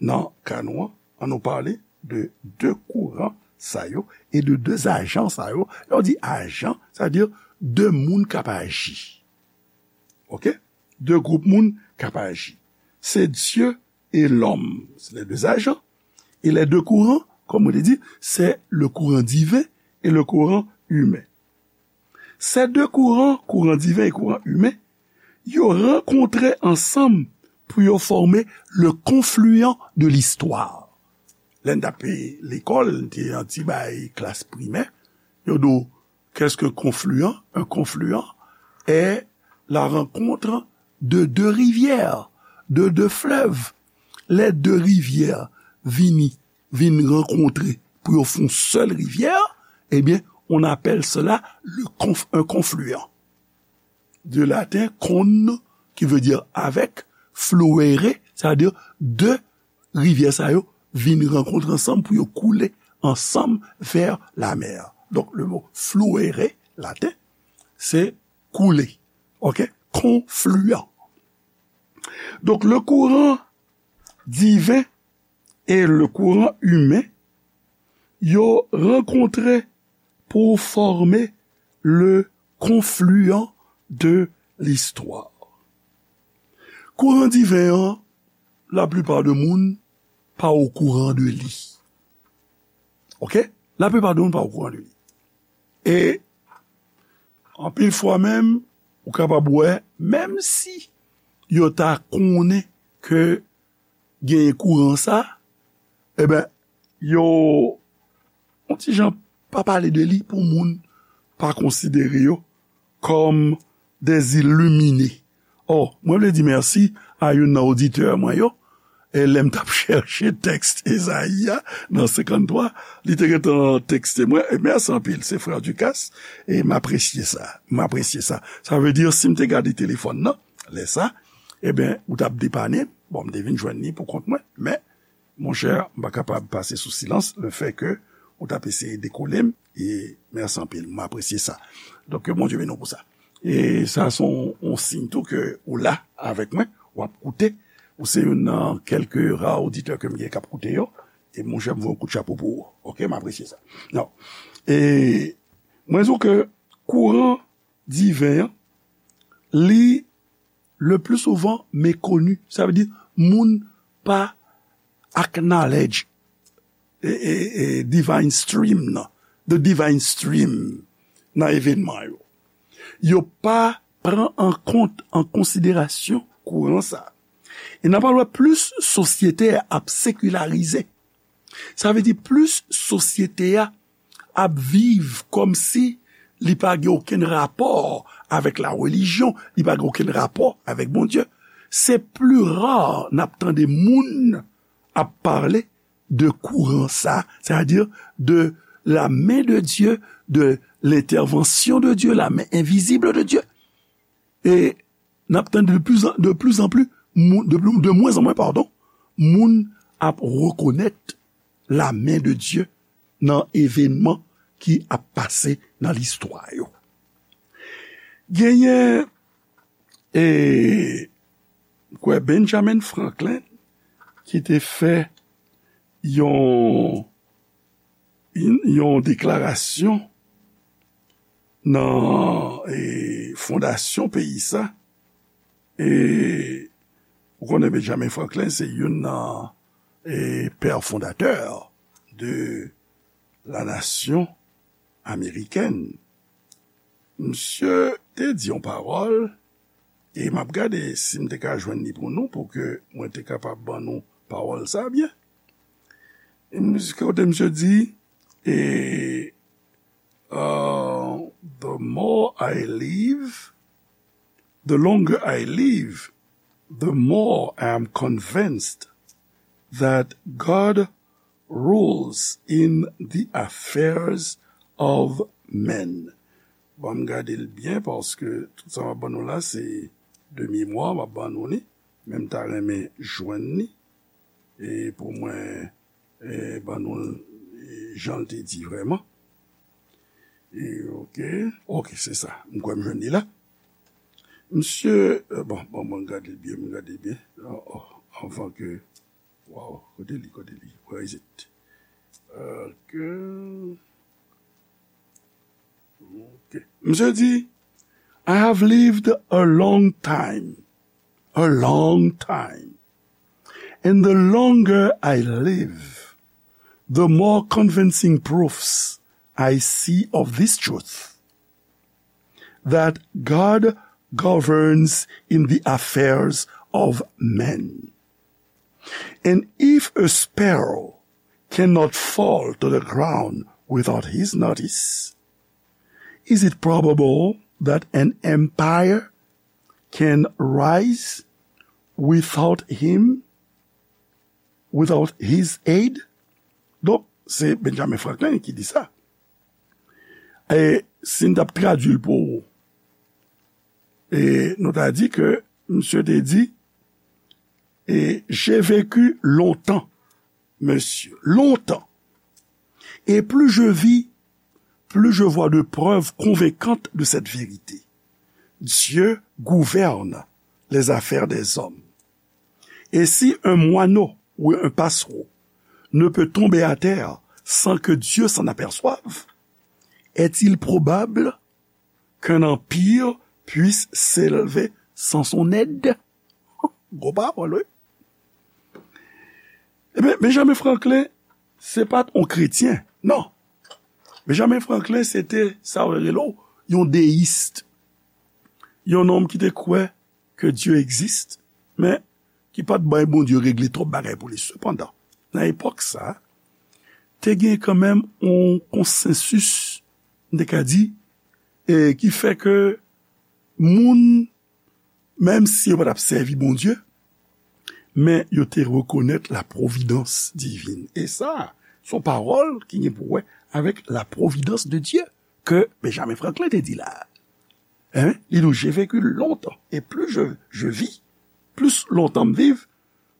nan ka nou an. Ann nou pale de de kouran sa yo e de de ajan sa yo. Lè w di ajan, sa vle di de moun k ap aji. Oke? De gwoup moun k ap aji. Se Dye e lòm. Se les deux agents. E les deux courants, kòm mwen te di, se le courant divin e le courant humain. Ces deux courants, courant divin et courant humain, yo rankontre ansanm pou yo fòme le confluent de l'histoire. Lè n t ap lekòl, n te yon ti bay klas primè, yo di w, qu'est-ce qu'un confluent? Un confluent est la rencontre de deux rivières, de deux fleuves. Lè de rivyè vini, vin rankontre pou yo fè yon sèl rivyè, ebyen, on appelle cela le conf-, un confluent. De latin con, qui veut dire avec, fluere, sa vle di de rivyè sa yo vin rankontre ansanm pou yo koule ansanm vers la mer. Donk, le mo fluere, laten, se koule. Oke? Confluent. Donk, le courant divin e le courant humain, yo rankontre pou fòme le confluent de l'histoire. Kouran diven an, laplipa de moun pa okouran de li. Oke? Laplipa de moun pa okouran de li. E anpil fwa menm, ou kapab wè, menm si yo ta konnen ke genyen kouran sa, ebyen, yo, yon ti jan pa pale de li pou moun pa konsidere yo kòm des illuminés. Ò, mwen vle di mèsi a youn nan oditè mwen yo, e lè m t ap chèche tèks Ezayi a nan senkanntwa, li te gentan tekste mwen, e mèsi anpil, se frè Ducasse, e m apresye sa, m apresye sa. Sa vle di, si m te gade telefòn nan, lè sa, ebyen, ou t ap depane m, bon, m te vin jwenn li pou kont mwen, men, monchè, m pa kapab pase sou silans le fè ke ou t ap eseye dekole m, e mèsi anpil, m apresye sa. Donk, ke Bondye beni w pou sa. E sa se yon, yon siy tou ke ou la avèk mwen, w ap koute, ou se youn nan kèlke ra oditè ke m gen k ap koute yo, e monchè, m voye yon kout chapo pou ou. Oke, m apresye sa. Non. E mwen di w ke kouran diven an, li le pli souvan mekoni. Sa vle di, moun pa acknowledge e, e, e, divine stream nan, the divine stream nan evènman yo. Yo pa pran an kont, an konsiderasyon kouran sa. E n ap al wè plis sosyete a ap sekilarize. Sa vle di plis sosyete a ap viv kòmsi li pa gen okenn rapò avèk la relijyon, li pa gen okenn rapò avèk Bondye. Se pli ra n ap tande moun ap pale de kouran sa, c'est-à-dire de la main de Dieu, de l'intervention de Dieu, la main invisible de Dieu. E n ap tande de plus en, de plus en plus, moun, de, de moins en moins, pardon, moun ap rekonèt la main de Dieu nan evènman ki ap pase nan listwa yo. Genyen, e, m kwè Benjamin Franklin ki te fè yon, yon deklarasyon nan, e, fondasyon peyi sa. E ou konnen Benjamin Franklin se youn nan, e, pè fondatè de la nasyon amerikèn. Misye te di yon pawòl, e m ap gade si m te ka jwenn li pou nou, pou ke mwen te kapab ban nou pawòl sa byen. E misye, kote misye di, e, uh, the more I live, the longer I live, the more I am convinced that God rules in the affairs of men. Ban m gade l byen, paske tout sa m ap ban nou la, se de memwa m ap ban nou li, men m ta renmen jwenn li, e pou mwen, e, ban nou l, e, jan l te di vrèman. E, oke, oke, se sa. M kwè m jwenn li la. Misye, e, bon, bon, bon, gade l byen, m gade l byen. Oh, oh, anvan ke, wow, kote li, kote li? Where is it? Ok. Ok. Misye di, I have lived a long time, a long time. And the longer I live, the more convincing proofs I see of this truth, that God governs in the affairs of men. And if a sparrow cannot fall to the ground without his notice, is it probable that an empire can rise without him, without his aid? Donk, se Benjamin Franklin ki di sa. E si n t ap tradui l pou ou, e nou ta di ke misye te di, e, j'ai vécu longtemps, monsieur, longtemps. Et plus je vis, plus je vois de preuves convaincantes de cette vérité. Dieu gouverne les affaires des hommes. Et si un moineau ou un passereau ne peut tomber à terre sans que Dieu s'en aperçoive, est-il probable qu'un empire puisse s'élever sans son aide? Gwo pawòl, wi. Ebyen, Benjamin Franklin, se pa t yon kretyen, non. Benjamin Franklin se te sa yo rele w yon deyis. Yon nonm ki te kwè ke Dye egziste, men ki pa t bay Bondye regle twòp bagay pou li. Sepandan, nan epòk sa, te gen kanmenm yon konsansis, m te ka di, e ki fè ke moun, menm si yo pa t ap sèvi Bondye, men yo te rekonèt la providence divine. E sa, se yon pawòl ki gen pou wè avèk la providence de Dieu ke Benjamin Franklin te di la. Hein? Li di, j'ai vécu longtemps, et plus je, je vis, plis lontan m viv,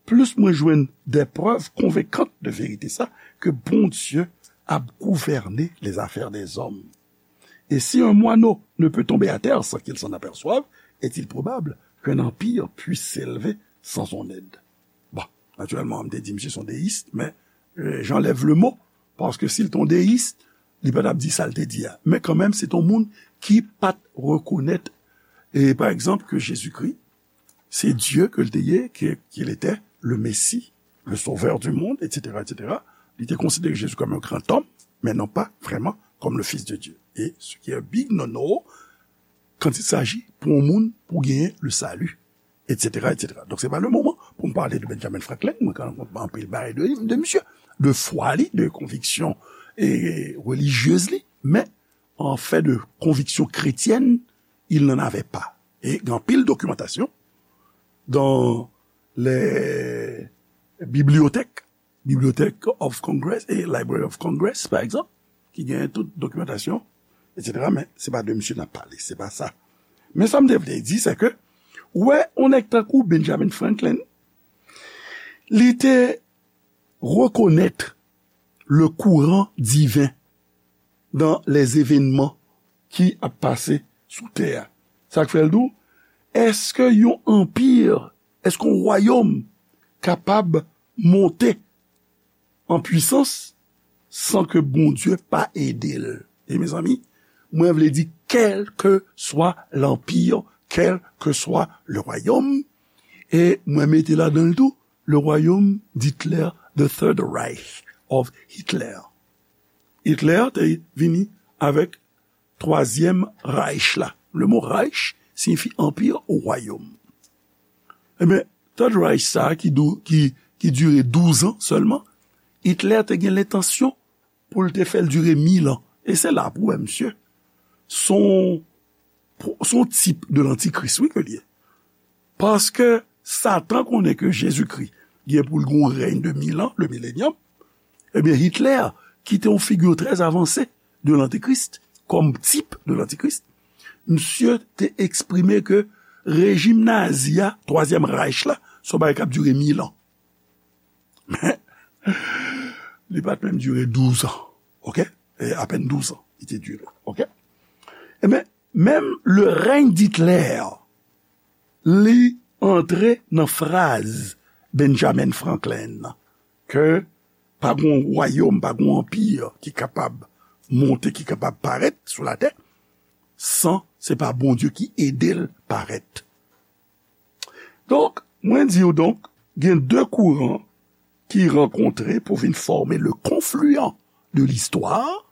plis mwen jwenn des preuves convaincantes de vérité sa, ke Bondye ap gouvène les affaires des hommes. Et si un moineau ne peut tomber à terre sans qu'il s'en aperçoive, est-il probable qu'un empire puisse s'élever sans son aide? Bon, natirèlman, m te di misye se yon deyis, men euh, j'enlève le mot, paske si l te yon deyis, li pa t ap di sa l te di a. Men kanmenm, se te yon moun ki pa t rekonèt, e pa egzanp, ke Jezikri, se Dye ke l te ye, ke, qu'il était le Messie, le Sauveur du monde, et cetera, et cetera. Li te konsidere Jezi kòm yon gran òm, men non pa vrèman kòm le Fils de Dieu. E ce qui est big no-no, quand il s'agit pou yon moun, pou genyen le salut, et cetera, et cetera. Donk, se pa le moman pou m pale de Benjamin Franklin, mwen ka rakonte anpil bagay de, de misye, de fwa li, de konviksyon e relijyez li, men an fè de konviksyon kretyèn, il n'en avait pas. E gen anpil dokimantasyon dans les bibliothèques, Bibliothèque of Congress e Library of Congress, pa egzanp, ki genyen tout dokimantasyon, et cetera. Men se pa de misye n ap pale, se pa sa. Men sa m te vle di, se ke, ou wè, yon nèg tankou Benjamin Franklin, li te rekonèt le courant divin dans les événements ki ap pase sou tè a. Sa k fè l di w, èske yon anpi, èske yon wayòm kapab monte an pwisans san ke Bondye pa ede l? E mezanmi, mwen vle di, kèlkeswa lanpi, kèlkeswa le wayòm, e mwen mete ladan l tou le royaume d'Hitler, the Third Reich of Hitler. Hitler te vini avèk twazyèm Reich la. Le mo Reich siyifi anpi ou wayòm. Ebyen, Third Reich sa a ki, dou, ki, ki dire douz an sèlman, Hitler te gen lentansyon pou l te fè l dire mil an. E se la pou w wè misye se yon, se yon tip de lantikris, wi, ke l ye. Paske Satan konnen ke Jezikri gen pou l gen yon rèy de mil an, le millennium, ebyen, Hitler, ki te yon figi trè avanse de lantikris, kòm tip de lantikris, misye te eksprime ke rejim nazi a, twazyèm Reich la, se yon bagay k ap dire mil an. Men, li pa t menm dire douz an, oke? E apèn douz an, li te dire, oke? Ebyen, menm le règne d'Hitler, li antre nan fraz Benjamin Franklin nan, ke pa gon wayòm, pa gon anpi ki kapab monte, ki kapab parèt sou latè, san se pa Bondye ki ede l parèt. Donk, mwen di w donk, gen de kouran ki rankontre pou vin fòme le confluent de l'histoire,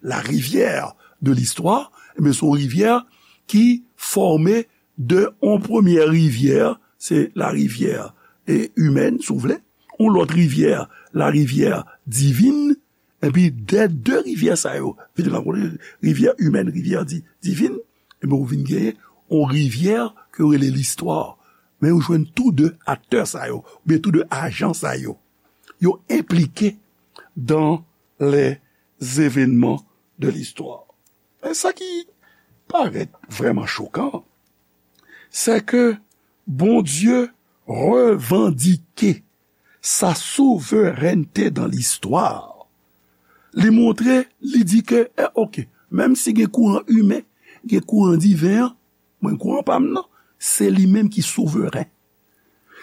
la rivière de l'histoire, ebyen, se yon rivyè ki fòme de yon premyè rivyè, se la rivyè e, imèn, si w vle, yon lòt rivyè, la rivyè divin, epi de, de rivyè sa yo vin rankontre, rivyè imèn, rivyè di, divin, ebyen, ou vin genyen yon rivyè ke yo rele listwa. Men ou jwenn tou de aktè sa yo, oubyen tou de ajan sa yo, yo enplike dans les événements de l'histoire. Men sa ki parèt vrèman chokan, se ke Bondye revandike sa souverènte dans l'histoire. Li montre, li di ke, eh, oke, menm si gen kouran imen, gen kouran diven an, mwen, kouran pa m nan, se li menm ki souveren.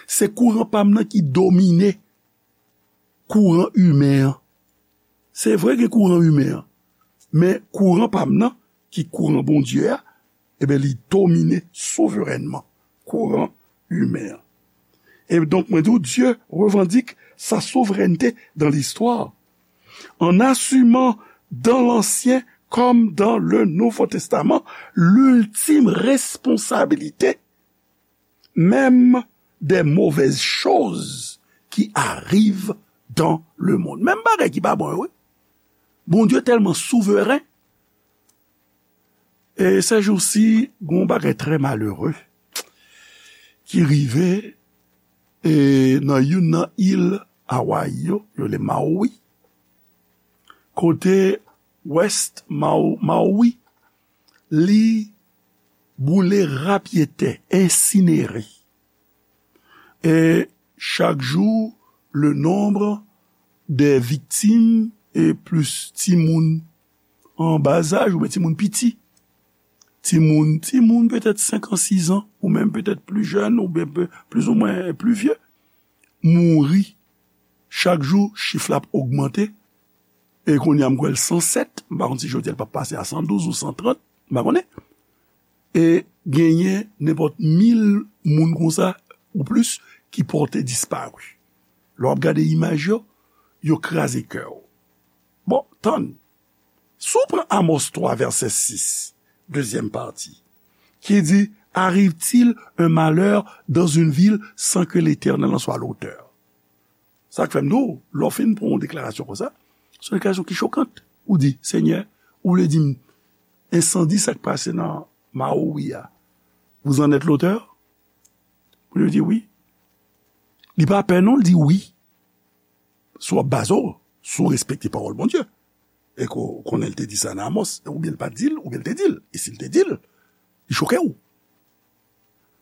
Se kouran pa m nan ki domine kouran imen an. Se vre gen kouran imen an, men kouran pa m nan, ki kouran Bondye a, ebyen, li domine souverènman kouran imen an. E donk, mwen di w, Dieu revendique sa souveraineté dans l'histoire en assumant dans l'Ancien comme dans le Nouveau Testament, l'ultime responsabilité même des mauvaises choses qui arrivent dans le monde. Menm bagay ki pa bon yo, wi. Bondye tèlman souveren. E sèjousi, gon bagay trè malere ki rive e nan youn nan il Hawaii yo, yo rele Maui, kote West Mau- Maui, li boule rapyetè, ensinere. E chak jou, le nombre des victimes e plis timoun an bazaj oubyen timoun piti. Timoun, timoun petèt senk an, sis an, ou menm petèt pli jèn, oubyen pe- plis ou mwen pli vye, mouri. Chak jou, chif la ap ogmante. E kounye a, m kwè l san sèt, m pa konn si jodi a l p ap pase a san douz ou san trant, m pa konnen. E genyen nenpòt mil moun konsa ou plis ki pòte dispari. Lè w ap gade imaj yo, yo kraze kè w. Bon, tann. Si w pran Amos twa, vèsè sis, dezyèm pati, ki di, arrive-t-il un malheur dans une ville sans que l'Éternel en soit l'auteur? Sa k fè m di w, lè w fin pran yon deklarasyon konsa, se yon deklarasyon ki chokant. Ou di, Senyè, ou vle di m, ensandi sa k pase nan Maui a, vous en êtes l'auteur? Bondye di wi. Li pa pè non, li di wi. Si w ap baze w, si w respekte pawòl Bondye. E ke w konnen l te di sa nan Amos, oubyen l pa t di l, oubyen l te di l. E si l te di l, li choke w.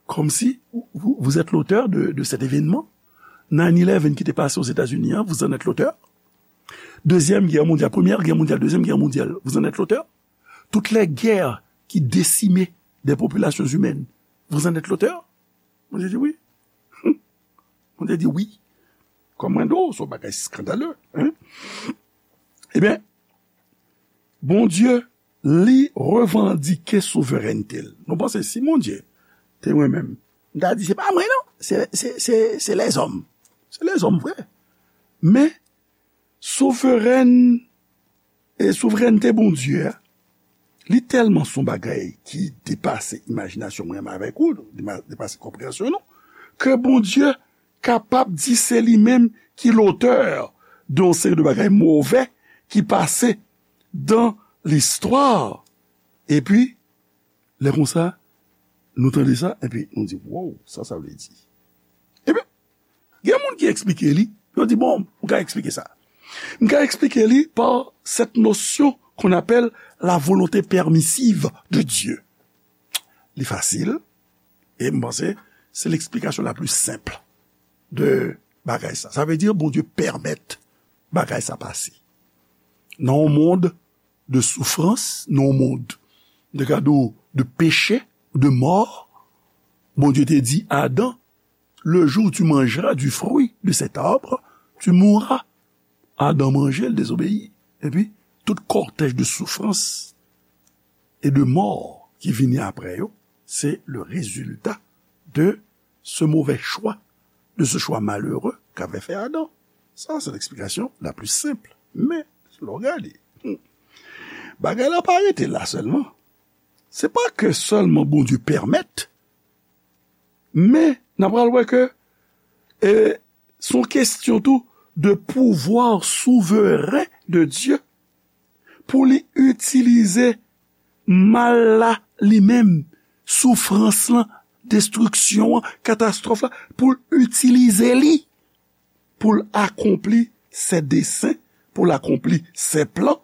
Comme si vous, vous êtes l'auteur de, de cet événement. Nine eleven ki te pase Ozetazini an, vous en êtes l'auteur. Deuxième guerre mondiale, première guerre mondiale, deuxième guerre mondiale, vous en êtes l'auteur. Toutes les guerres qui décimaient des populations humaines, vous en êtes l'auteur. Bondye di wi. Bondye di wi. Kòm mwen di w, se yon bagay skandale. Hein? Ebyen, Bondye, li revandike souverènte l. Nou panse si Bondye te mwen menm, m ta di, se pa mwen non, se, se, se, se lèzòm. Se lèzòm vre. Men, souverèn, e souverènte Bondye a, li tèlman se yon bagay ki depase imajinasyon mwen menm avèk ou, dema- depase konpreyansyon nou, ke Bondye kapab di se li menm ki lotè de yon seri de bagay move ki pase dan listwa. Epi, lè konsa, nou tande sa, epi nou di, wow, sa sa vle di? Ebyen, gen moun ki eksplike li, yo di, bon, m ka eksplike sa. M ka eksplike li par cette notion qu'on appelle la volonté permissive de Dieu. Li fasil, e m panse se leksplikasyon la pli senp de bagay sa. Sa vle di Bondye pèmèt bagay sa pase. Nan yon mond de soufrans, nan yon mond de gado, de peche, de mò, Bondye te di Adan, le jour où tu mangeras du fruit de cet arbre, tu mourras. Adan manje, l dezobeyi. Epi, tout kòtèj de soufrans e de mò ki vini apre yo, se le résultat de ce mauvais choix, de ce choix malheureux qu'avait fait Adam. Sa, se leksplikasyon la pli senp. Men, lè w gade, hmm, bagay la pa rete la sèlman. Se pa ke sèlman Bondye pèmèt, men n a pral wè ke, e, se yon kesyon tou de pouvwa souveren de Dye pou li itilize mal la li menm, soufrans lan, destriksyon an, katastwòf la, pou l itilize li, pou l akonpli ses desseins, pou l akonpli ses plans,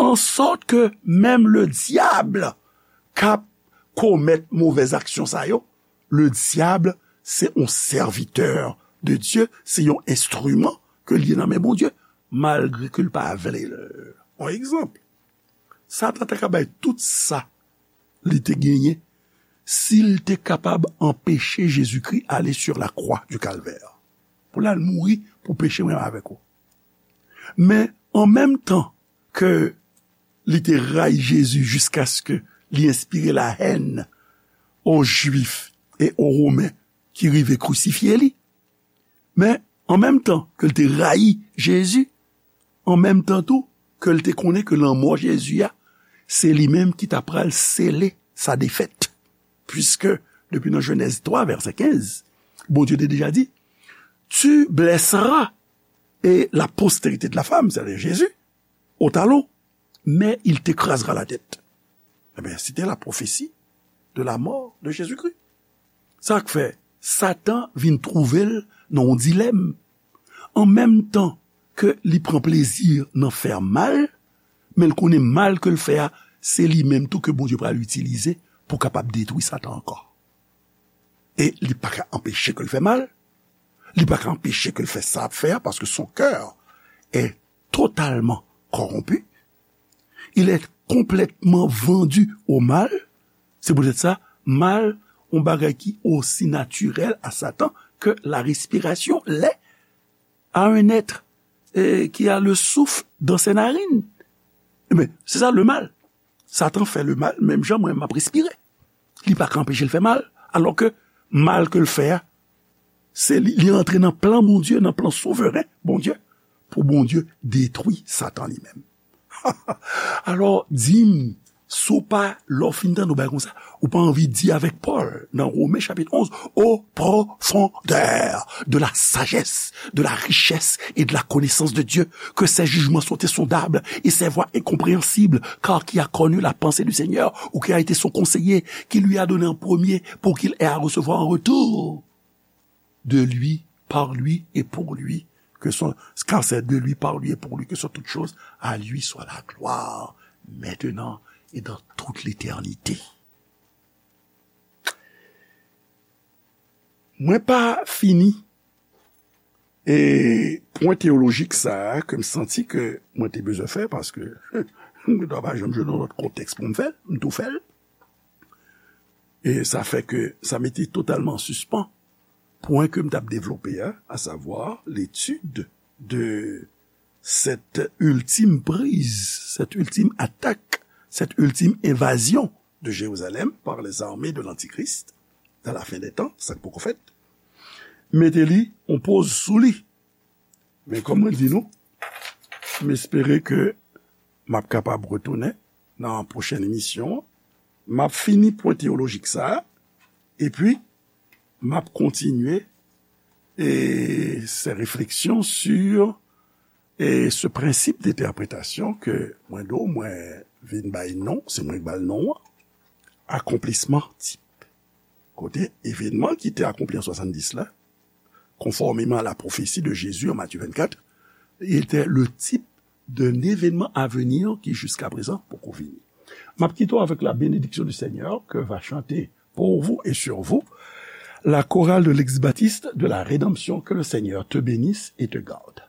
an sòt ke menm le dyab k ap komèt movèz aksyon sa yo, le dyab se yon sèvitè de Dye, se yon enstriman ke l ye nan men Bondye, malgre ke l pa vle l. Yon egzanp, Satan ta ka bay tout sa li te genyen si l te kapab anpeche Jezikri ale sur la croix du Calvaire pou l al mouri pou peche mwen avèk ou. Men, an menm tan ke li te rayi Jezi jiskaske li enspire lahèn o Jwif e o Women ki rive krisifye li. Men, an menm tan ke l te rayi Jezi, an menm tan tou, ke l te konnen ke lanmò Jezi a, se li menm ki ta pral sele sa defèt. Piske, depi nan Jenèz twa, vèsè kenz, Bondye te deja di, Tu blesseras et la postérité de la femme, c'est-à-dire Jésus, au talon, mais il t'écrasera la tête. Ebyen, c'était la prophétie de la mort de Jésus-Christ. Sa k fè Satan vin twouve l nan yon dilèm. An menm tan ke li pran plezi nan fè mal, men l konnen mal ke l fè a, se li menm tou ke Bondye pral itilize pou kapab detwi Satan ankò. E li pa ka anpeche ke l fè mal, li pa ka anpeche ke l fè sa l ap fè a, paske son cœur est totalement corrompu, il est complètement vendu au mal. C'est peut-être ça, mal, yon bagay ki osi natirèl a Satan ke la respiration l'est à un être, eh, qui a le souffle dans ses narines. Ebyen, se sa le mal. Satan fè le mal, menm jan mwen m ap respire. Li pa ka anpeche l fè mal, alò ke mal ke l fè a, se li, li antre nan plan Bondye, nan plan souveren Bondye, pou Bondye detwi Satan li menm. Alò, di m, si w pa, lè w fin tande yon bagay konsa, ou pa anvi di avèk Pòl nan Women chapit onz, au profondeur de la sagesse, de la richesse et de la connaissance de Dieu, que ses jugements sont insondables et ses voies incompréhensibles, car qui a connu la pensée du Seigneur, ou qui a été son conseiller, qui lui a donné en premier pour qu'il ait à recevoir en retour de lui, par lui et pour lui, que sont, car c'est de lui, par lui et pour lui que sont toutes choses, à lui soit la gloire, maintenant et dans toute l'éternité. Mwen pa fini e pwen teyolojik sa a ke m santi ke mwen te bezwen fè, paske mwen ta pa janm jwenn yon lòt kontèks pou m fè l, m tou fè l. E sa fè ke sa mete totalman an sispan pwen ke m t ap devlope a, à savoir l'étude de cette ultime prise, cette ultime attaque, cette ultime invasion de Jérusalem par les armées de l'Antichrist dans la fin des temps, sa k poko fèt, mete li on poz sou li. Men kòm mwen di nou, m espere ke m ap kapab retounen nan pwochèn emisyon an. M ap fini pwen teyolojik sa a, epi m ap kontinye e, ces réflexions sur e, ce principe d'interprétation ke mwen do, mwen vin bay non, se mwen k ba l non an, akonplisman tip. Kote evenman ki te akonpli an swasanndis la, conformément à la prophétie de Jésus en Matthieu vingt-quatre, était le type d'un événement à venir qui jusqu'à présent poko vini. M ap kite w avec la bénédiction du Seigneur que va chanter pour vous et sur vous la chorale de l'Ex-Baptiste de la Rédemption. Que le Seigneur te bénisse et te garde.